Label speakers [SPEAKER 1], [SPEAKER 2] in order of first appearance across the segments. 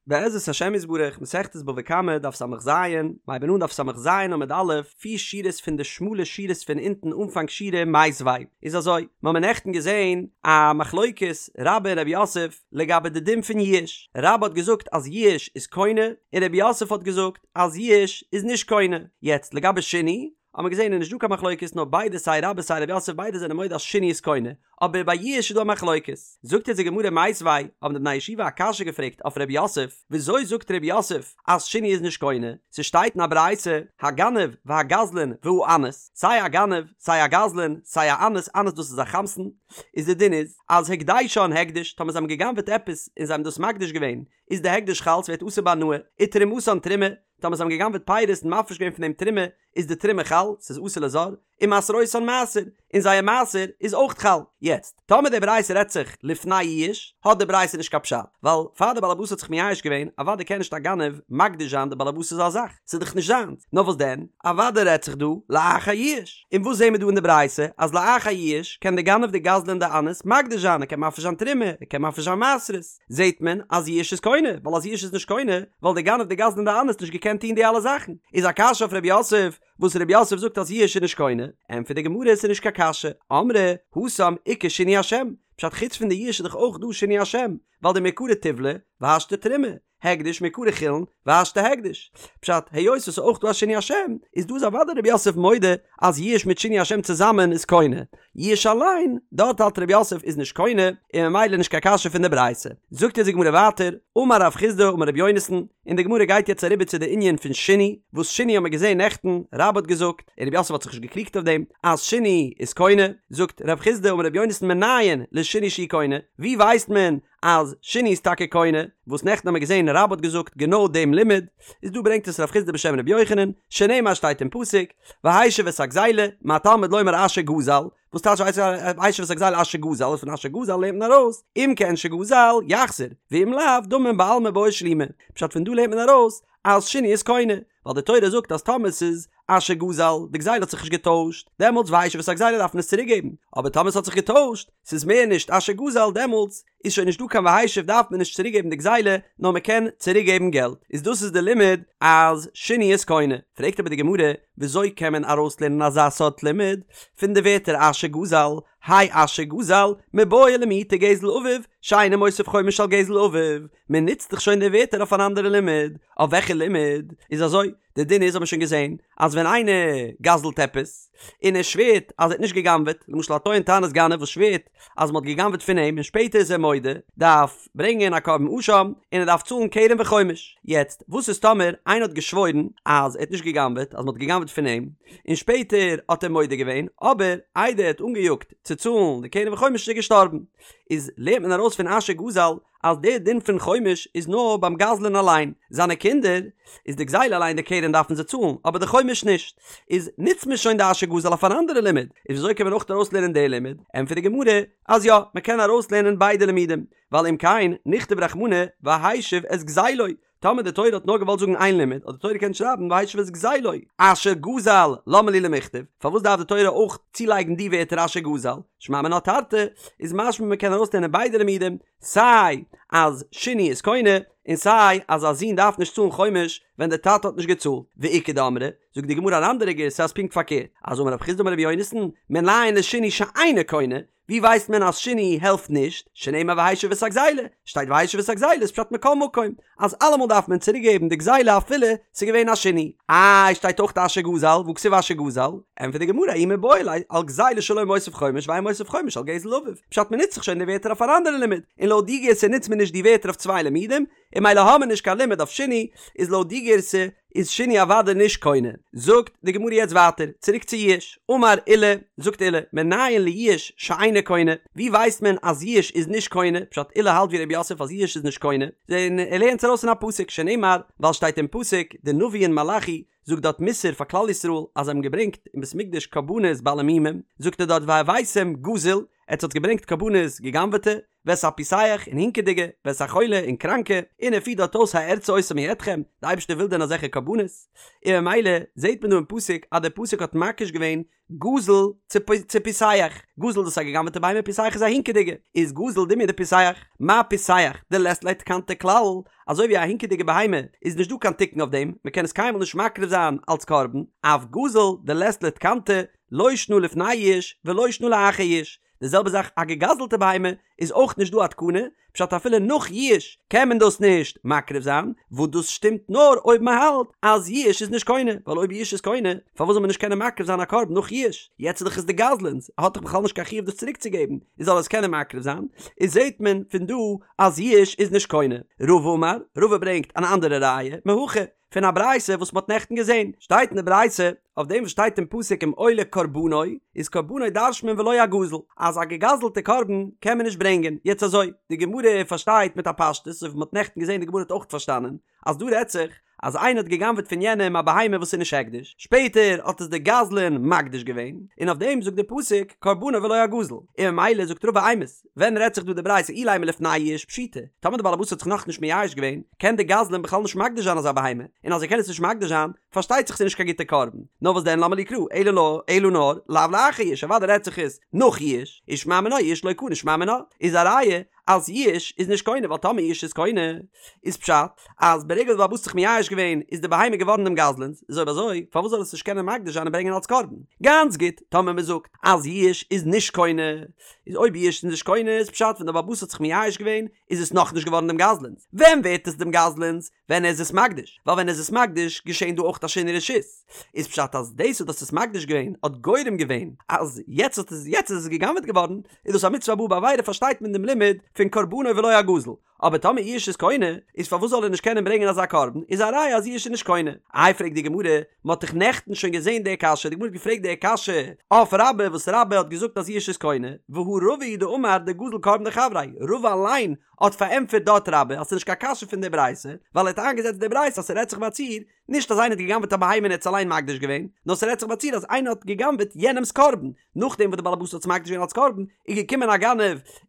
[SPEAKER 1] בעזרת השם יתברך, מסכת בבא קמא, דף ס"ז, מ'הייבן אן דף ס"ז עמוד א', פיר שורות פון די שמאלע שורות פון אונטן אנפאנג שורה מיתיבי איז אזוי, מ'האמיר נעכטן געזען א מחלוקת רבה און רב יוסף לגבי די דין פון יאוש, רבה האט געזאגט אז יאוש איז קונה, און רב יוסף האט געזאגט אז יאוש איז נישט קונה, יעצט לגבי שינוי, האט מען געזען איז נישט דא קיין מחלוקת נאר ביידע סיי רבה סיי רב יוסף ביידע זענען מודה אז שינוי איז קונה, אבער ביי יאוש איז דא א מחלוקת. זאגט אונז די גמרא מיתיבי, האבן די בני ישיבה א קשיא געפרעגט אויף רב יוסף, וויאזוי זאגט רב יוסף אז שינוי איז נישט קונה, ס'שטייט אין א ברייתא, הגנב והגזלן והאנס, סיי א גנב, סיי א גזלן, סיי א אנס, אנס דאס איז א חמסן, איז די דין איז, אז הקדשן הקדש, טאמער זיי האבן גע'גנב'עט עפעס און זיי האבן דאס מקדיש געווען, איז די הקדש חל, ס'ווערט אסור בהנאה, ותרומתן תרומה, טאמער זיי האבן גע'גנב'עט פירות און מפריש געווען פון דעם תרומה, איז די תרומה חל, ס'איז אסור לזר, ומעשרותן מעשר, און זייער מעשר איז אויך חל. יעצט, טאמער די ברייתא רעדט זיך לפני יאוש, האט די ברייתא נישט קיין פשט, ווייל פאר די בעלעבאס האט זיך מייאש געווען, אוודאי קען נישט א גנב מקדיש זיין די בעלעבאס'ס א זאך, ס'איז דאך נישט זיינס, נאר וואס דען, אוודאי רעדט זיך דא לאחר יאוש. און וואס זעהן מיר דא אין די ברייתא, אז לאחר יאוש קען די גנב די גזלן די אנס מקדיש זיין, ער קען מפריש זיין תרומה, ער קען מפריש זיין מעשרות. זעהט מען אז יאוש איז קונה, ווייל אז יאוש איז נישט קונה, וואלט די גנב די גזלן די אנס נישט געקענט טוהן די אלע זאכן. איז א קשיא אויף ר' יוסף, וואס ר' יוסף זאגט אז יאוש איז נישט קונה? ענטפערט די גמרא עס איז נישט קיין קשיא, אמרי התם איכא שינוי השם, פשט חוץ פון די יאוש איז דאך אויך דא שינוי השם, ווייל דמעיקרא טיבלא והשתא תרומה, הקדש מעיקרא חולין והשתא הקדש. פשט, היות עס איז אויך דא א שינוי השם, איז דא איז אוודאי ר' יוסף מודה אז יאוש מיט שינוי השם צוזאמען איז קונה. יאוש אליין, דארט האלט ר' יוסף איז נישט קונה, און ממילא נישט קיין קשיא פון די ברייתא. זאגט אונז די גמרא ווייטער, אמר רב חסדא אמר ר' יונתן, און די גמרא גייט יעצט אריבער צו די ענין פון שינוי, וואס שינוי האט מען געזען נעכטן, רבה האט געזאגט, און ר' יוסף האט זיך נישט געקריגט אויף דעם, אז שינוי איז קונה, זאגט רב חסדא אמר ר' יונתן מנין לשינוי שהוא קונה, ווי ווייסט מען אז שינוי איז טאקע קונה, וואס נעכטן האמיר געזען רבה האט געזאגט גענוי דעם לימוד, איז דא ברענגט עס רב חסדא בשם רבי יוחנן, שנאמר שטייט אין פסוק, והשיב את הגזילה, מה תלמוד לומר אשר גזל, וואס טייטש והשיב את הגזילה אשר גזל, פון אשר גזל לערנט מען ארויס, אם כעין שגזל, יחזיר, ואם לאו, דמים בעלמא בעי שלומי, פשט פון דא לערנט מען ארויס אז שינוי איז קונה, ווייל די תורה זאגט אז טאמער ס'איז אשר גזל, די גזילה האט זיך נישט געטוישט, דעמאלטס והשיב את הגזילה דארף מען עס צוריק געבן, אבער טאמער ס'האט זיך געטוישט, ס'איז מער נישט אשר גזל, דעמאלטס איז שוין נישט דא קיין והשיב דארף מען נישט צוריק געבן די גזילה, נאר מען קען צוריק געבן געלט, איז דאס איז די לימוד אז שינוי איז קונה. פרעגט אבער די גמרא, וויאזוי קען מען ארויסלערנען אזא סארט לימוד פון די ווערטער אשר גזל, האי אשר גזל, מיבעי למעוטי גזל אביו, שאינו מוסיף חומש על גזל אביו, מען נוצט דאך שוין די ווערטער אויף אן אנדערע לימוד, אויף וועלכע לימוד? איז אזוי, די דין איז האט מען שוין געזען, אז ווען איינער גזל'ט עפעס, און ער שווערט אז ער האט נישט גע'גנב'עט, למשל א טוען טענת גנב וואס שווערט אז מען האט גע'גנב'עט פון אים און שפעטער איז ער מודה, דארף ברענגען א קרבן אשם, און ער דארף צאלן קרן וחומש. יעצט, וואס איז טאמער איינער האט געשוואוירן אז ער האט נישט גע'גנב'עט, אז מען האט גע'גנב'עט פון אים, און שפעטער האט ער מודה געווען, אבער איידער ער האט אנגעיאגט צו צאלן די קרן וחומש איז ער געשטארבן. איז לערנט מען ארויס פון אשר גזל אז דער דין פון חומש איז נאר ביים גזלן אליין, זיינע קינדער, איז די גזילה אליין די קרן דארפן זיי צאלן, אבער די חומש נישט. איז נוצט מען שוין די אשר גזל אויף אן אנדערע לימוד, איז וויאזוי קען מען אויך ארויסלערנען די לימוד? ענטפערט די גמרא אז יא, מען קען ארויסלערנען ביידע לימודים, ווייל אם כן נכתוב רחמנא והשיב את גזילו, טאמער די תורה האט נאר געוואלט זאגן איין לימוד, האט די תורה געקענט שרייבן והשיב את גזילו, אשר גזל, למה לי למכתב, פארוואס דארף די תורה אויך צולייגן די ווערטער אשר גזל, שמע מינה תרתי, איז משמע מען קען ארויסלערנען ביידע לימודים, סיי אז שינוי איז קונה, און סיי אז א זון דארף נישט צאלן חומש ווען די טאטע האט נישט געצאלט, ואיכא דאמרי, זאגט די גמרא אן אנדערע גירסא אז פונקט פארקערט, אז אמר רב חסדא אמר רבי יונתן, מנין לשינוי שאינו קונה, ווי ווייסט מען אז שינוי העלפט נישט? שנאמר והשיב את הגזילה, שטייט והשיב את הגזילה איז פשט מכל מקום אז אלעמאל דארף מען צוריק געבן די גזילה אפילו ס'איז געווען א שינוי. איי שטייט אויך אשר גזל, והא כתיב אשר גזל? ענטפערט די גמרא ההוא מיבעי ליה על גזילה שלו מוסיף חומש ואין מוסיף חומש על גזל אביו, פשט מ'נוצט זיך שוין די ווערטער אויף אן אנדערע לימוד, און לויט די גירסא נוצט מען נישט די ווערטער אויף צוויי לימודים, און ממילא האמיר נישט קיין לימוד אויף שינוי, איז לויט די גירסא איז שינוי אוודאי נישט קונה. זאגט די גמרא יעצט ווייטער, צוריק צו יאוש, אמר עולא, זאגט עולא, מנין ליאוש שאינו קונה, ווי ווייסט מען אז יאוש איז נישט קונה, פשט עולא האלט ווי ר' יוסף אז יאוש איז נישט קונה, און ער לערנט עס ארויס פון א פסוק, שנאמר, ווייל שטייט אין פסוק, די נביא אין מלאכי זאגט דארט מוסר פאר כלל ישראל אז זיי האבן געברענגט אין בית מקדש קרבנות בעלי מומים, זאגט ער דארט והבאתם גזול, עטס האטס געברענגט קרבנות גע'גנב'עטע, ואת הפיסח, און הינקעדיגע, ואת החולה, און קראנקע, און ער פירט דארט אויס הארצה אותם מידכם, די אייבערשטער וויל דען אזעלכע קרבנות? און ממילא זעט מען דא אין פסוק אז דער פסוק האט מקיש געווען גזול צו פיסח, גזול דאס איז א גע'גנב'עטע בהמה פיסח איז א הינקעדיגע, איז גזול דומיא דפיסח, מה פיסח דלית ליה תקנתא כלל, אזוי ווי א הינקעדיגע בהמה איז נישט דא קיין תיקון אויף דעם, מען קען עס קיינמאל נישט מקריב זיין אלץ קרבן, אף גזול דלית ליה תקנתא לא שנא לפני יאוש ולא שנא לאחר יאוש, די זעלבע זאך א געגזלטע בהמה איז אויך נישט דא א תקנה, פשט אפילו נאך יאוש קען מען דאס נישט מקריב זיין, וואס דאס שטימט נאר אויב מען האלט אז יאוש איז נישט קונה, ווייל אויב יאוש איז קונה פארוואס זאל מען נישט קענען מקריב זיין א קרבן נאך יאוש, יעצט איז דאך עס די גזלן'ס, ער האט דאך בכלל נישט קיין חיוב דאס צוריק צו געבן, איז זאל ער עס קענען מקריב זיין, איז זעט מען פון דא אז יאוש איז נישט קונה. רבא אמר, רבא ברענגט אן אנדערע ראיה, מהכא, פון א ברייתא וואס מ'האט נעכטן געזען, שטייט אין די ברייתא, אויף דעם וואס שטייט אין פסוק אם עולה קרבנו, איז קרבנו דרש'נט מען ולא הגזול, אז א געגזלטע קרבן קען מען נישט ברענגען, יעצט אזוי, די גמרא פארשטייט מיט א פשטות, אזוי ווי מ'האט נעכטן געזען די גמרא האט אויך פארשטאנען, אז דא רעדט זיך אז איינער האט גע'גנב'עט פון יענעם א בהמה וואס איז נישט הקדש, שפעטער האט עס דער גזלן מקדיש געווען, און אויף דעם זאגט דער פסוק קרבנו ולא הגזול, און ממילא זאגט רבא אימת, ווען רעדט זיך דא די ברייתא אילימא לפני יאוש פשיטא, טאמער די בעל הבית האט זיך נאכנישט מייאש געווען, קען די גזלן בכלל נישט מקדיש זיין אזא בהמה, און אז ער קען עס נישט מקדיש זיין, פארשטייט זיך ס'איז נישט קיין גוטע קרבן. נאר וואס דען למה לי קרא, אלא נאר, אלא נאר, לאו לאחר יאוש, אוודאי רעדט זיך עס נאך יאוש, ושמע מינה יאוש לא קני שמע מינה, איז א ראיה אז יאוש איז נישט קונה, ווייל טאמער יאוש איז קונה, איז פשט אז ברגע וואס די בעל הבית האט זיך מייאש געווען איז די בהמה געווארן דעם גזלן'ס, איז אויב אזוי פארוואס זאל ער עס נישט קענען מקדיש זיין און ברענגען אלס קרבן? גאנץ גוט, טאמער מ'זאגט אז יאוש איז נישט קונה, איז אויב יאוש איז נישט קונה איז פשט ווען דער בעל הבית האט זיך מייאש געווען איז עס נאכנישט געווארן דעם גזלן'ס, ווען ווערט עס דעם גזלן'ס? ווען ער איז עס מקדיש, ווייל ווען ער איז עס מקדיש געשען דא אויך א שינוי רשות, איז פשט אז דאס וואס דו האסט עס מקדיש געווען האט גורם געווען אז יעצט האט עס יעצט איז עס גע'גנב'עט געווארן, איז דאס א מצוה הבאה בעבירה פארשטייט מען דעם לימוד פון קרבנו ולא הגזול, אבער טאמער יאוש איז קונה, איז פארוואס זאל ער נישט קענען ברענגען אזא קרבן, איז א ראיה אז יאוש איז נישט קונה. איי פרעגט די גמרא, מען האט דאך נעכטן שוין געזען די קשיא, די גמרא האט געפרעגט די קשיא אויף רבה וואס רבה האט געזאגט אז יאוש איז קונה, והא רבא הוא דאמר דגזל קרבן דחבריה, רבא אליין האט פארענטפערט דארט רבה אז ס'איז נישט קיין קשיא פון די ברייתא, ווייל ער האט איינגעזעצט די ברייתא אז ס'רעדט זיך ביי א ציור, נישט אז איינער האט גע'גנב'עט א בהמה און ער האט עס אליין מקדיש געווען, נאר ס'רעדט זיך ביי א ציור אז איינער האט גע'גנב'עט יענעמ'ס קרבן, נאכדעם וואס די בעל הבית האט עס מקדיש געווען אלס קרבן, איז געקומען א גנב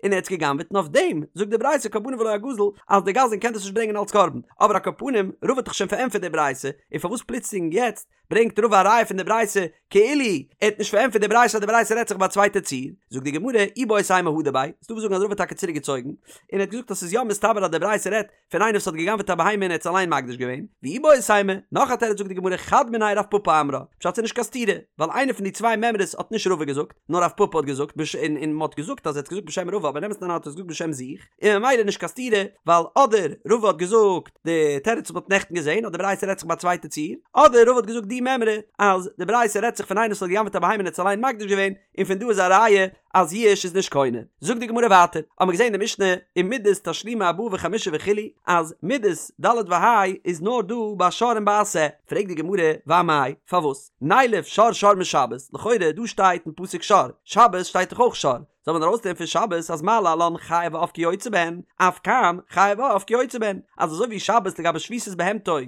[SPEAKER 1] און ער האט עס גע'גנב'עט און אויף דעם זאגט די ברייתא קרבנו ולא הגזול אז די גזלן קען דאס נישט ברענגען אלס קרבן, אבער על כל פנים רבא האט דאך שוין פארענטפערט די ברייתא, און פארוואס פלוצלינג יעצט ברענגט רבא א ראיה פון די ברייתא כאילו ער האט נישט פארענטפערט די ברייתא אז די ברייתא רעדט זיך ביי א צווייטע ציור, זאגט די גמרא איבעית אימא הדר ביה, ס'דא וואס זאגן אז רבא האט טאקע צוריק געצויגן, און ער האט געזאגט אז ס'איז יא מסתבר אז די ברייתא רעדט פון איינער וואס האט גע'גנב'עט א בהמה און ער האט עס אליין מקדיש געווען, ואיבעית אימא, נאך א תירוץ זאגט די גמרא חד מינייהו רב פפא אמרה, פשט ס'איז נישט קיין סתירה, ווייל איינער פון די צוויי מימרות האט נישט רבא געזאגט, נאר רב פפא האט געזאגט בש און און מ'האט געזאגט אז ער האט געזאגט בשם רבא אבער אין אמת'ן אריין האט ער עס געזאגט בשם זיך, און ממילא נישט קיין סתירה, ווייל אדער רבא האט געזאגט די תירוץ וואס מ'האט נעכטן געזען אז די ברייתא רעדט זיך ביי א צווייטע ציור, אדער רבא האט געזאגט די מימרא אז די ברייתא רעדט זיך פון איינער וואס האט גע'גנב'עט א בהמה און האט עס אליין מקדיש געווען, און פון דא איז א ראיה אז יאוש איז נישט קונה. זאגט די גמרא ווייטער, האבן מיר געזען אין די משנה ומדות תשלומי ארבעה וחמישה וכו' אז מדות ד' וה' איז נאר דא ביי שור און ביי א שה, פרעגט די גמרא ואמאי, פארוואס? נילף שור שור משבת, לכאורה דא שטייט אין פסוק שור, שבת שטייט דאך אויך שור, זאל מען ארויסלערנען פון שבת אז מה להלן חיה ועוף כיוצא בהן, אף כאן חיה ועוף כיוצא בהן, אז אזוי ווי שבת לגבי שביתת בהמתו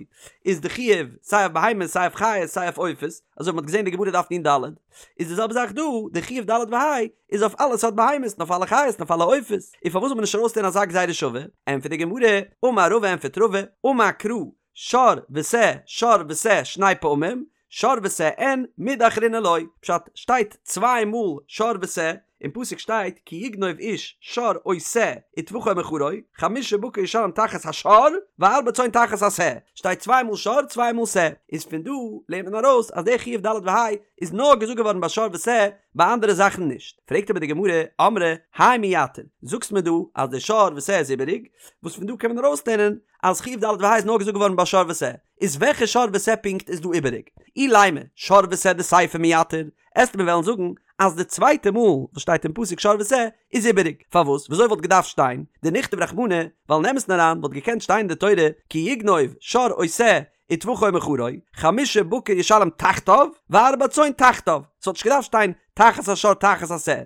[SPEAKER 1] איז די חיוב סיי אויף בהמות סיי אויף חיות סיי אויף עופות, אזוי ווי מ'האט געזען אין די גמרא דף נ"ד, איז די זעלבע זאך דא, די חיוב ד' וה' איז אויף אלע סארט בהמות און אויף אלע חיות און אויף אלע עופות, און פארוואס זאל מען נישט ארויסלערנען אזא גזירה שווה? ענטפערט די גמרא, אמר רבא ענטפערט רבא, אמר קרא, שור ושה שור ושה שני פעמים, שור ושה אין, מידי אחרינא לא, פשט, שטייט צוויי מאל שור ושה, אין פסוק שטייט כי יגנוב איש שור או שה וטבחו או מכרו, חמשה בקר ישלם תחת השור וארבע צאן תחת השה, שטייט צוויי מאל שור צוויי מאל שה, איז פון דא לערנט מען ארויס אז דער חיוב ד' וה' איז נאר געזאגט געווארן ביי שור ושה, ביי אנדערע זאכן נישט. פרעגט אבער די גמרא, אמרי, האי מייתר, זאגסט מיר דא אז דער שור ושה איז איבעריג, וואס פון דא קען מען ארויסלערנען אז חיוב ד' וה' איז נאר געזאגט געווארן ביי שור ושה, איז וועלכע שור ושה פונקט איז דא איבעריג? אילימא, שור ושה דסיפא מייתר, עסט מיר וועלן זאגן אז די צווייטע מאל וואס שטייט אין פסוק שור ושה איז איבעריג, פארוואס? וויאזוי וואלט געדארפט שטיין דניכתוב רחמנא, ווייל אין אמת'ן אריין וואלט געקענט שטיין אין די תורה כי יגנוב שור או שה וטבחו או מכרו, חמשה בקר ישלם תחתיו וארבע צאן תחתיו, ס'וואלט נישט געדארפט שטיין. תחת השור תחת השה,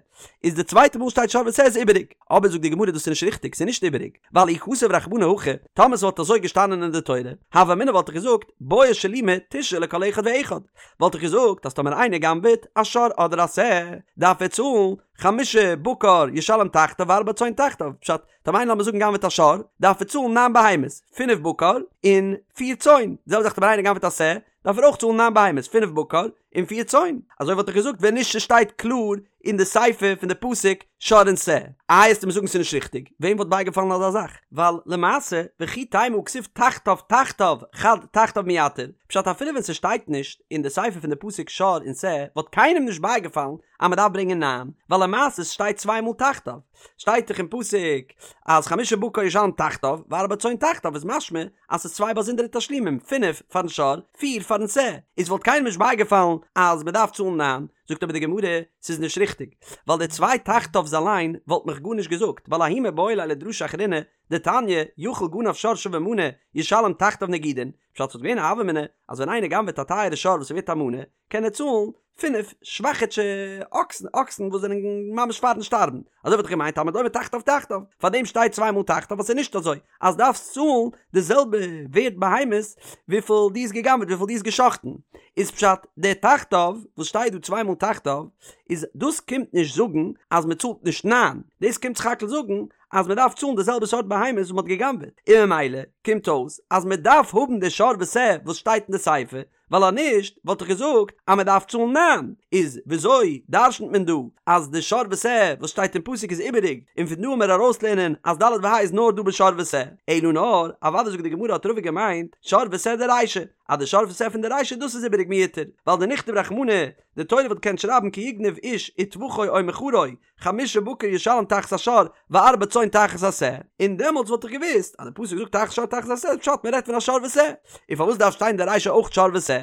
[SPEAKER 1] איז די צווייטע מאל שטייט שור ושה איז איבעריג, אבער זאגט די גמרא דאס איז נישט ריכטיג, ס'איז נישט איבעריג, ווייל אי כתב רחמנא הכי, טאמער ס'וואלט אזוי געשטאנען אין די תורה, הוה אמינא וואלט איך געזאגט, בעי שלומי תשעה לכל אחד ואחד, וואלט איך געזאגט אז טאמער איינער גנב'עט א שור אדער א שה, דארף ער צאלן חמשה בקר ישלם תחתיו וארבע צאן תחתיו, פשט, טאמער איינער לאמיר זאגן גנב'עט א שור, דארף ער צאלן ניין בהמות, פינף בקר און פיר צאן, די זעלבע זאך טאמער איינער גנב'עט א שה, דארף ער אויך צאלן ניין בהמות, פינף בקר און פיר צאן. אזוי וואלט איך געזאגט ווען נישט ס'שטייט קלאר אין די סיפא פון די פסוק שור און שה. איי עסטו מיר זאגן ס'איז נישט ריכטיג, וועם וואלט בייגעפאלן אזא זאך? ווייל למעשה וכי תימא הא כתיב תחתיו תחתיו חד תחתיו מייתר, פשט אפילו ווען ס'שטייט נישט אין די סיפא פון די פסוק שור און שה וואלט קיינעם נישט בייגעפאלן אז מ'דארף ברענגען ניין, ווייל למעשה ס'שטייט צוויי מאל תחתיו. שטייט דאך אין פסוק אז חמשה בקר ישלם תחתיו וארבע צאן תחתיו איז משמע אז ס'איז צוויי באזונדערע תשלומים, פינף פארן שור, פיר פארן שה, איז וואלט קיינעם נישט בייגעפאלן אז מ'דארף צאלן ניין, זאגט אבער די גמרא, ס'איז נישט ריכטיג, ווייל די צוויי תחתיו'ס אליין וואלט מיך גארנישט געזאגט, ווייל ההוא מיבעי ליה לדרשה אחרינא, דתניא, יכול גנב שור שווה מנה, ישלם תחתיו נגידין, פשט ס'וואלט געווען א הוה אמינא אז ווען איינער גנב'עט א טייערע שור וואס איז ווערט א מנה, קען ער צאלן פינף שוואכיטשע אקסן, אקסן וואס זענען ממש פארן שטארבן, אזוי וואלט איך געמיינט תלמוד לומר תחתיו תחתיו, פארדעם שטייט צוויי מאל תחתיו ווייל ס'איז נישט אזוי אז דארפסט צאלן די זעלבע ווערט בהמות וויפיל דו האסט גע'גנב'עט וויפיל דו האסט גע'שחט'ן, איז פשט די תחתיו וואס שטייט דא צוויי מאל תחתיו איז דאס קומט נישט זאגן אז מ'צאלט נישט ניין, דאס קומט סך הכל זאגן אז מ'דארף צאלן די זעלבע סארט בהמות וואס מ'האט גע'גנב'עט, און ממילא קומט אויס אז מ'דארף האבן די שור ושה וואס שטייט אין די סיפא ווייל אז נישט וואלט איך געזאגט אז מען דארף צאלן ניין, איז וויאזוי דרשנ'ט מען דא אז די שור ושה וואס שטייט אין פסוק איז איבעריג, און פון דא עמיר ארויסלערנען אז ד' וה' איז נאר דא בשור ושה, אלא נאר, אוודאי זאגט די גמרא האט רבא געמיינט שור ושה דרישא, אז די שור ושה פון די רישא דאס איז איבעריג מיותר, ווייל דניכתוב רחמנא, די תורה וואלט געקענט שרייבן כי יגנב איש וטבחו או מכרו, חמשה בקר ישלם תחת השור וארבע צאן תחת השה, און דעמאלטס וואלט איך געוואוסט אז די פסוק זאגט תחת שור תחת השה איז פשט מען רעדט פון א שור ושה, און פארוואס דארף שטיין די רישא אויך שור ושה?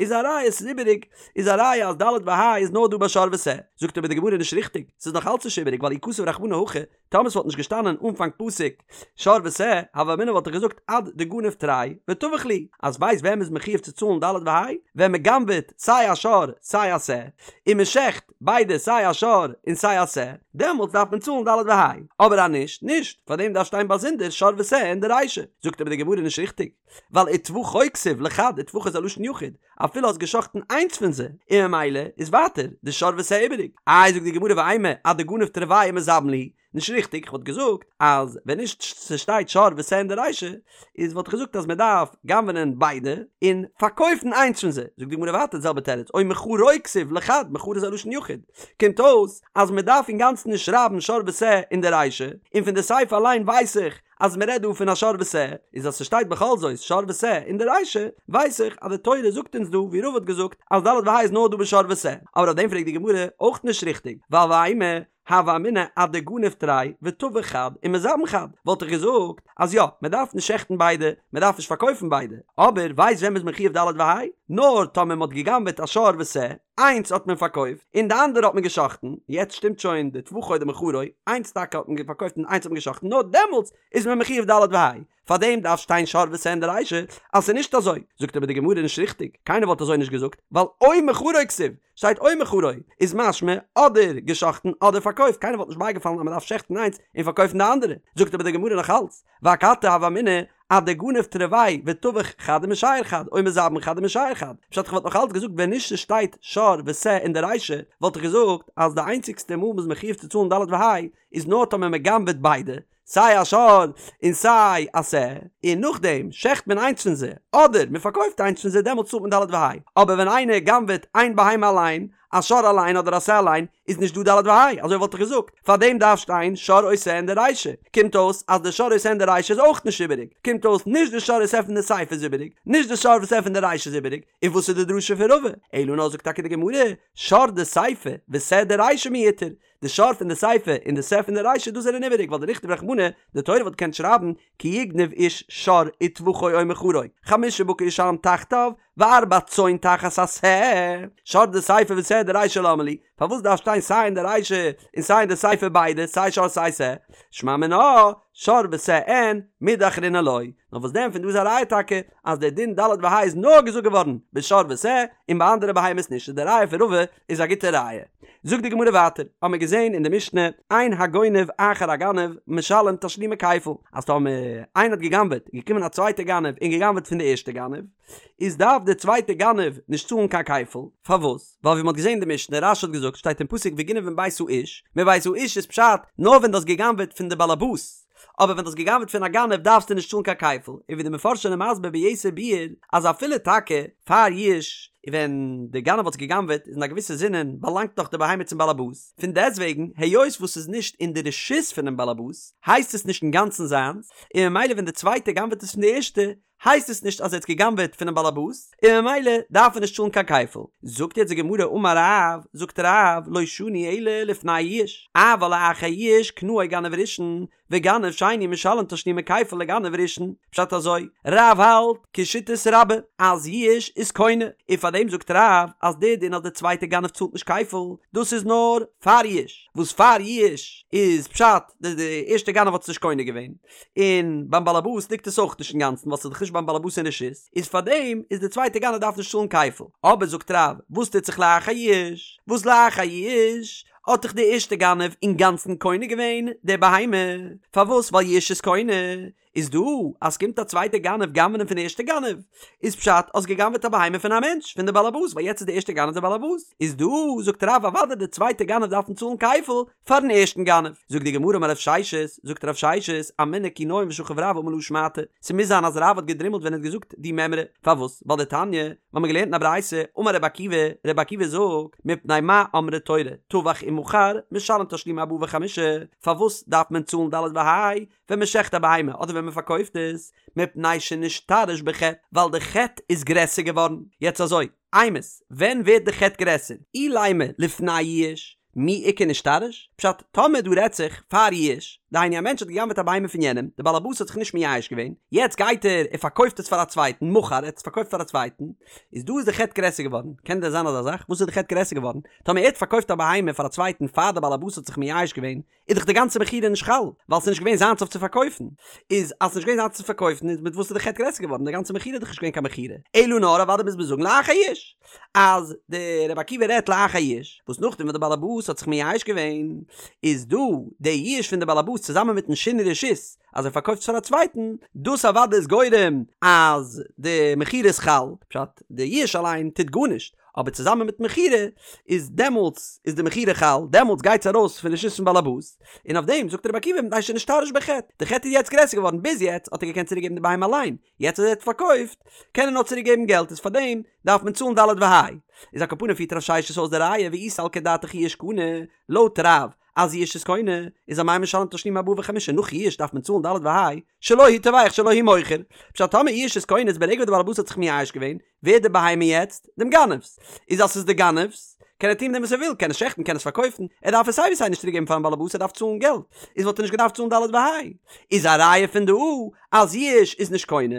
[SPEAKER 1] איז א ראיה ס'איז איבעריג, איז א ראיה אז ד' וה' איז נאר דא ביי שור ושה, זאגט אבער די גמרא נישט ריכטיג, ס'איז נאך אלץ נישט איבעריג ווייל אי כתב רחמנא הכי, טאמער ס'וואלט נישט געשטאנען אנפאנג פסוק שור ושה, הוה אמינא וואלט איך געזאגט עד דגניב תרי וטבח להו, אז ווייסט ווען מ'איז מחויב צו צאלן ד' וה'? ווען מ'גנב'עט סיי א שור סיי א שה, און מ'שעכט ביידע סיי א שור און סיי א שה, דעמאלטס דארף מען צאלן ד' וה', אבער אז נישט, נישט, פארדעם דארף שטיין באזונדער שור ושה אין די רישא, זאגט אבער די גמרא נישט ריכטיג, ווייל וטבחו כתיב לחד וטבחו איז א לשון יחיד, אפילו האסט געשחט'ן איינס פון זיי, און ממילא איז ווייטער די שור ושה איבעריג. איי זאגט די גמרא ואימא עד דגניב תרוייהו ומזבין להו, נישט ריכטיג, כ'וואלט געזאגט אז ווען נישט ס'שטייט שור ושה אין די רישא, איז וואלט איך געזאגט אז מ'דארף גנב'נען ביידע און פארקויפן איינס פון זיי, זאגט די גמרא ווייטער די זעלבע תירוץ, או מכרו כתיב לחד, מכרו איז א לשון יחיד, קומט אויס אז מ'דארף אינגאנצן נישט שרייבן שור ושה אין די רישא, און פון די סיפא אליין ווייס איך אז מ'רעדט דא פון א שור ושה, איז אז ס'שטייט בכל זאת שור ושה אין די רישא, ווייס איך אז די תורה זאגט אונז דא ווי רבא האט געזאגט אז ד' וה' איז נאר דא בשור ושה, אבער אויף דעם פרעגט די גמרא אויך נישט ריכטיג, ווייל ואימא הוה אמינא עד דגניב תרי וטבח חד ומזבין חד, וואלט איך געזאגט אז יא, מען דארף נישט שעכטן ביידע, מען דארף נישט פארקויפן ביידע, אבער ווייסט ווען מ'איז מחויב ד' וה'? נאר טאמער מ'האט גע'גנב'עט א שור ושה, איינס האט מען פארקויפט, און די אנדערע האט מען גע'שחט'ן, יעצט שטימט שוין די טבחו דמכרו, איינס טאקע האט מען פארקויפט און איינס האט מען גע'שחט'ן, נאר דעמאלטס איז מען מחויב ד' וה'. פארדעם דארף שטיין שור ושה אין די רישא אז ס'איז נישט אזוי, זאגט אבער די גמרא נישט ריכטיג, קיינער וואלט אזוי נישט געזאגט, ווייל או מכרו כתיב, שטייט או מכרו, איז משמע אדער גע'שחט'ן אדער פארקויפט, קיינער וואלט נישט בייגעפאלן אז מ'דארף שעכטן איינס און פארקויפן די אנדערע, זאגט אבער די גמרא נאך אלץ, ואכתי הוה אמינא עד דגניב תרוייהו וטבח חד ומשייר חד, או מזבין חד ומשייר חד, פשט איך וואלט נאך אלץ געזאגט ווען נישט ס'שטייט שור ושה אין די רישא, וואלט איך געזאגט אז די איינציגסטע מאל מ'איז מחויב צו צאלן ד' וה' איז נאר טאמער מ'גנב'עט ביידע, סיי א שור און סיי א שה, און נאכדעם שעכט מען איינס פון זיי, אדער מען פארקויפט איינס פון זיי דעמאלטס צאלט מען ד' וה', אבער ווען איינער גנב'עט איין בהמה אליין, א שור אליין אדער א שה אליין, איז נישט דא ד' וה', אזוי וואלט איך געזאגט, פארדעם דארף שטיין שור או שה אין די רישא, קומט אויס אז די שור או שה אין די רישא איז אויך נישט איבעריג, קומט אויס נישט די שור או שה פון די סיפא איז איבעריג, נישט די שור ושה פון די רישא איז איבעריג, און וואס איז די דרשה פון רבא? אלא נאר זאגט טאקע די גמרא, שור דסיפא ושה דרישא מיותר, די שור פון די סיפא און די שה פון די רישא דאס זענען איבעריג ווייל דניכתוב רחמנא, די תורה וואלט געקענט שרייבן כי יגנב איש שור וטבחו או מכרו, חמשה בקר ישלם תחתיו, וארבע צאן תחת השה, שור דסיפא ושה דרישא למה לי, פארוואס דארף שטיין סיי אין די רישא און סיי אין די סיפא ביידע סיי שור סיי שה, שמע מינה. שור ושה אין, מידי אחרינא לא. נאר וואס דען פון דא איז א ראיה טאקע אז דער דין ד' וה' איז נאר געזאגט געווארן בשור ושה און ביי אנדערע בהמות נישט איז די ראיה פון רבא איז א גוטע ראיה. זאגט די גמרא ווייטער, האמיר געזען אין די משנה, אין הגונב אחר הגנב משלם תשלומי כפל, אז טאמער איינער האט גע'גנב'עט איז געקומען א צווייטע גנב און גע'גנב'עט פון די ערשטע גנב, איז דארף דער צווייטע גנב נישט צאלן קיין כפל, פארוואס? ווייל ווי מ'האט געזען אין די משנה, רש"י האט געזאגט, שטייט אין פסוק וגנב מבית האיש, מבית האיש איז פשט, נאר ווען דו האסט גע'גנב'עט פון די באלעבאס, אבער ווען דו האסט גע'גנב'עט פון א גנב דארפסטו נישט צאלן קיין כפל, און ווי די מפרשים זענען מסביר ביתר ביאור, אז אפילו טאקע פאר יאוש, ווען די גנב האט עס גע'גנב'עט איז אין א געוויסע זינען באלאנגט נאך די בהמה צום באלעבאס, פון דעסטוועגן היות וואס ס'איז נישט אין די רשות פונעם באלעבאס, הייסט עס נישט אינגאנצן זיינס, און ממילא ווען די צווייטע גנב'עט עס פון די ערשטע, הייסט עס נישט אז ער האט גע'גנב'עט פונעם באלעבאס, און ממילא דארף ער נישט צאלן קיין כפל. זאגט יעצט די גמרא אמר רב, זאגט רב, לא שנו אלא לפני יאוש, אבל לאחר יאוש קנאו גנב ראשון, וגנב שני משלם תשלומי כפל לגנב ראשון. פשט אזוי, רב האלט כשיטת רבה אז יאוש איז קונה, און פארדעם זאגט רב אז דער דין אז דער צווייטער גנב צאלט נישט כפל, דאס איז נאר פאר יאוש, וואס פאר יאוש איז פשט די די ערשטע גנב האט עס נישט קונה געווען, און ביים באלעבאס ליגט עס אויך נישט אינגאנצן ווייל ס'איז דאך נישט ביים באלעבאס אין רשות, איז פארדעם איז די צווייטע גנב דארף נישט צאלן כפל. אבער זאגט רב, וואס טוט זיך לאחר יאוש? וואס לאחר יאוש האט דאך די ערשטע גנב אינגאנצן קונה געווען די בהמה, פארוואס? ווייל יאוש איז קונה. איז דא אז ס'קומט א צווייטע גנב גנב'נען פון די ערשטע גנב, איז פשט האסט געגנב'עט א בהמה פון א מענטש, פון די באלעבאס, ווייל יעצט איז די ערשטע גנב די באלעבאס, איז דא זאגט רב אוודאי די צווייטע גנב דארפן צאלן כפל, פארן ערשטן גנב. זאגט די גמרא אמר רב ששת, זאגט רב ששת, אמינא כי ניים ושכיב רב אמר להא שמעתא, ס'מוז זיין אז רב האט געדרימלט ווען ער האט געזאגט די מימרא, פארוואס? ווייל דתניא, מיר האבן געלערנט אין א ברייתא, אמר רבי עקיבא, רבי עקיבא זאגט, מפני מה אמרה תורה, טבח ומכר, משלם תשלומי ארבעה וחמישה, פארוואס דארף מען צאלן ד' וה' ווען מען שעכט א בהמה אדער ווען מען פארקויפט עס, מפני שנשתרש בחטא, ווייל די חטא איז גרעסער געווארן. יעצט אזוי, אימת, ווען ווערט די חטא גרעסער? אילימא לפני יאוש, מי איכא נשתרש? פשט, טאמער דא רעדט זיך פאר יאוש, דהיינו א מענטש האט גע'גנב'עט א בהמה פון יענעם, די בעל הבית האט זיך נישט מייאש געווען, יעצט גייט ער און פארקויפט עס פאר א צווייטן, מכר, ער האט עס פארקויפט פאר א צווייטן, איז דא איז די חטא גרעסער געווארן, קען דען זיין אזא זאך? וואס איז די חטא גרעסער געווארן? טאמער ער האט פארקויפט א בהמה פאר א צווייטן פאר די בעל הבית האט זיך מייאש געווען, איז דאך די גאנצע מכירה נישט חל, ווייל ס'איז נישט געווען זיינס אויף צו פארקויפן. איז אז ס'איז נישט געווען זיינס צו פארקויפן איז מיט וואס איז די חטא גרעסער געווארן? די גאנצע מכירה איז דאך נישט געווען קיין מכירה. אלא נאר אוודאי מוז מען זאגן לאחר יאוש. אז דער רבי עקיבא רעדט לאחר יאוש, וואס נאכדעם וואס די בעל הבית האט זיך מייאש געווען, איז דא די יאוש פון די בעל הבית צוזאמען מיטן שינוי רשות אז ער פארקויפט עס פאר א צווייטן, דאס אוודאי איז גורם אז די מכירה איז חל, פשט, די יאוש אליין טוט גארנישט, אבער צוזאמען מיט מכירה איז דעמאלטס איז די מכירה חל, דעמאלטס גייט עס ארויס פון רשות פון בעלעבאס, און אויף דעם זאגט רבי עקיבא מפני שנשתרש בחטא, די חטא איז יעצט גרעסער געווארן, ביז יעצט האט ער געקענט צוריק געבן די בהמה אליין, יעצט אז ער האט פארקויפט קען ער נאר צוריק געבן געלט איז פארדעם דארף מען צאלן ד' וה'. איז על כל פנים פירט רב ששת אויס די ראיה ואי סלקא דעתך יאוש קנה, לויט רב אז יאוש איז קונה איז אמאי משלם תשלומי ארבעה וחמישה נאך יאוש דארף מען צאלן ד' וה' שלו הוא טובח שלו הוא מוכר פשט טאמער יאוש איז קונה איז ברגע וואס די בעל הבית האט זיך מייאש געווען ווערט די בהמה יעצט דעם גנב'ס איז אז ס'איז די גנב'ס קען ער טון מיט דעם וואס ער וויל קען עס שעכטן קען עס פארקויפן ער דארף עס סיי ווי סיי נישט צוריק געבן פארן בעל הבית ער דארף צאלן געלט איז וואלט ער נישט געדארפט צאלן ד' וה' איז א ראיה פון דא אז יאוש איז נישט קונה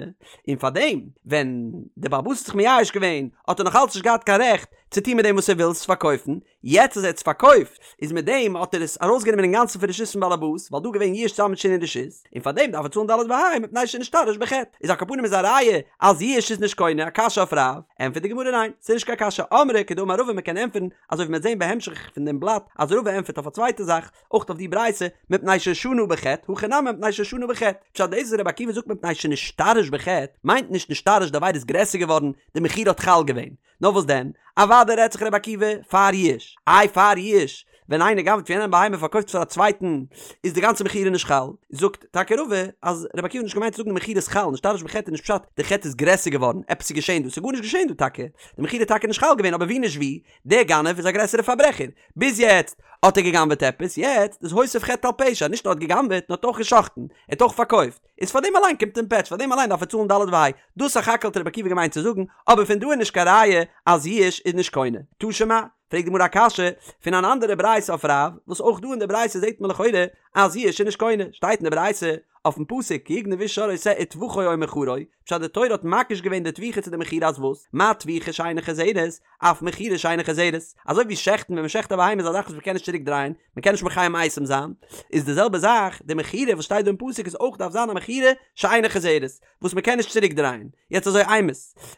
[SPEAKER 1] און פארדעם ווען די בעל הבית האט זיך מייאש געווען האט ער נאך אלץ נישט געהאט קיין רעכט צו טון מיט דעם וואס ער וויל עס פארקויפן יעצט אז ער האט עס פארקויפט, איז מיט דעם האט ער עס ארויסגענומען אינגאנצן פון רשות פון באלעבאס, ווייל דא געווען יאוש צוזאמען מיט שינוי רשות, און פאר דעם דארף ער צאלן ד' וה' מפני שנשתרש בחטא. איז על כל פנים איז א ראיה אז יאוש איז נישט קונה, א קשיא אויף רב? ענטפערט די גמרא ניין, ס'איז נישט קיין קשיא, אמרי כדאמר רבא מ'קען ענטפערן, אזוי ווי מ'וועט זען בהמשך פון דעם בלאט אז רבא ענטפערט אויף א צווייטע זאך, אויך אויף די ברייתא, מפני ששנה בחטא, הכא נמי מפני ששנה בחטא. פשט דאס וואס רבי עקיבא זאגט מפני שנשתרש בחטא, מיינט נישט נשתרש די עבירה איז גרעסער געווארן, די מכירה האט חל געווען, נאר וואס דען? אוודאי רעדט זיך רבי עקיבא פאר יאוש. איי פאר יאוש, ווען איינער גנב'ט פון יענעם בהמה און פארקויפט עס פאר א צווייטן, איז די גאנצע מכירה נישט חל? זאגט טאקע רבא אז רבי עקיבא האט נישט געמיינט צו זאגן די מכירה איז חל, נשתרש בחטא איז נישט פשט די חטא איז גרעסער געווארן, עפעס איז געשען דא, ס'איז גארנישט געשען דא טאקע, די מכירה איז טאקע נישט חל געווען אבער ווי נישט ווי, דער גנב איז א גרעסערע פארברעכער, ביז יעצט האט ער געגנב'עט עפעס, יעצט איז הוסיף חטא על פשע, נישט נאר האט געגנב'עט נאר האט אויך גע'שחט'ן, ער האט אויך פארקויפט. איז פאר דעם אליין קומט אים פעטש, פאר דעם אליין דארף ער צאלן ד' וה', דאס סך הכל האט רבי עקיבא געמיינט צו זאגן, אבער פון דא איז נישט קיין ראיה אז יאוש איז נישט קונה. תא שמע, פרעגט די גמרא א קשיא פון אן אנדערע ברייתא אויף רב, וואס אויך דא אין די ברייתא זעט מען לכאורה אז יאוש איז נישט קונה, שטייט אין די ברייתא אויפן פסוק כי יגנב איש שור או שה וטבחו או מכרו, פשט די תורה האט מקיש געווען די טביחה צו די מכירה אז וואס? מה טביחה שאינה חוזרת, אף מכירה שאינה חוזרת, אזוי ווי שעכטן ווען מ'שעכט א בהמה איז א זאך וואס מ'קען נישט צוריק דרייען, מ'קען נישט מחיה מתים זיין, איז די זעלבע זאך די מכירה וואס שטייט דא אין פסוק איז אויך דארף זיין א מכירה שאינה חוזרת, וואס מ'קען נישט צוריק דרייען. יעצט אזוי אימת,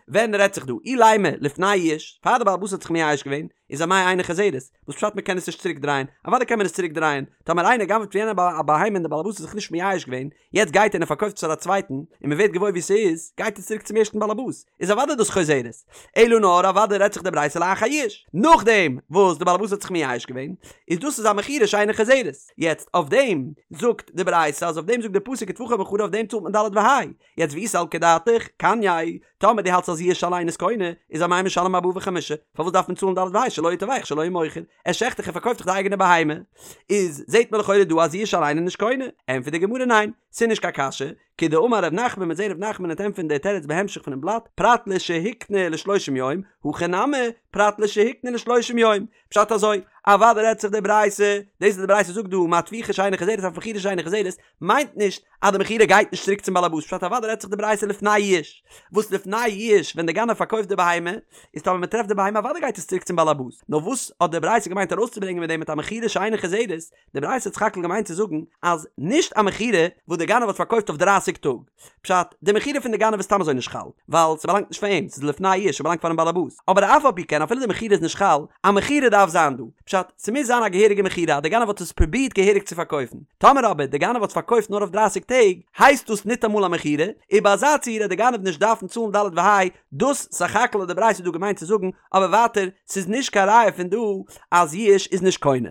[SPEAKER 1] ווען רעדט זיך דא? אילימא לפני יאוש, פאר די בעל הבית האט זיך מייאש געווען, איז אמאי אינה חוזרת, וואס פשט מ'קען עס נישט צוריק דרייען? אוודאי קען מען עס צוריק דרייען, טאמער איינער גנב'ט פון יענעם א בהמה און די בעל הבית האט זיך נישט מייאש געווען, יעצט גייט ער און ער פארקויפט עס פאר א צווייטן, און מען ווערט געוואויר וואו ס'איז, גייט עס צוריק צום ערשטן באלעבאס, איז אוודאי דאס חוזרת. אלא נאר אוודאי רעדט זיך די ברייתא לאחר יאוש, נאכדעם וואס די באלעבאס האט זיך מייאש געווען, איז דאס איז א מכירה שאינה חוזרת. יעצט אויף דעם זאגט די ברייתא אז אויף דעם זאגט די פסוק וטבחו ומכרו אויף דעם צאלט מען ד' וה'. יעצט ואי סלקא דעתך, קנייה, טאמער דו האלטסט אז יאוש אליין איז קונה, איז אמאי משלם ארבעה וחמישה, פארוואס דארף מען צאלן ד' וה' שלו הוא טובח שלו הוא מוכר, ער שעכט דאך ער פארקויפט דאך די אייגענע בהמה, איז זעהט מען לכאורה דא אז יאוש אליין איז נישט קונה, ענטפערט די גמרא ניין, ס'איז נישט קיין קשיא, כדאמר ר' נחמן מ'עט זעהן ר' נחמן וועט ענטפערן די תירוץ בהמשך פונעם בלאט, פרט לשהקנה לשלושים יום, הכא נמי, פרט לשהקנה לשלושים יום, פשט אזוי, אוודאי רעדט זיך די ברייתא, דאס וואס די ברייתא זאגט דא מה טביחה שאינה חוזרת אף מכירה שאינה חוזרת, מיינט נישט אז די מכירה גייט נישט צוריק צום באלעבאס, פשט אוודאי רעדט זיך די ברייתא לפני יאוש, וואס לפני יאוש ווען די גנב פארקויפט די בהמה, איז טאמער מען טרעפט די בהמה אוודאי גייט עס צוריק צום באלעבאס, נאר וואס האט די ברייתא געמיינט ארויסצוברענגען מיט דעם מיט א מכירה שאינה חוזרת, די ברייתא האט סך הכל געמיינט צו זאגן אז נישט א מכירה וואס די גנב האט פארקויפט אויף דרייסיג טאג, פשט, די מכירה פון די גנב איז סתם אזוי נישט חל, ווייל ס'באלאנגט נישט פאר אים, ס'איז לפני יאוש, ס'באלאנגט פארן באלעבאס. אבער אף על פי כן אפילו די מכירה איז נישט חל, א מכירה דארף זיין דא. פשט, ס'מוז זיין א געהעריגע מכירה אז די גנב האט עס פרובירט געהעריג צו פארקויפן. טאמער אבער די גנב האט עס פארקויפט נאר אויף דרייסיג טעג, הייסט דאס ניטאמאל א מכירה, און ביי אזא ציור וועט די גנב נישט דארפן צאלן ד' וה', דאס סך הכל האט די ברייתא דא געמיינט צו זאגן, אבער ווייטער, ס'איז נישט קיין ראיה פון דא אז יאוש איז נישט קונה.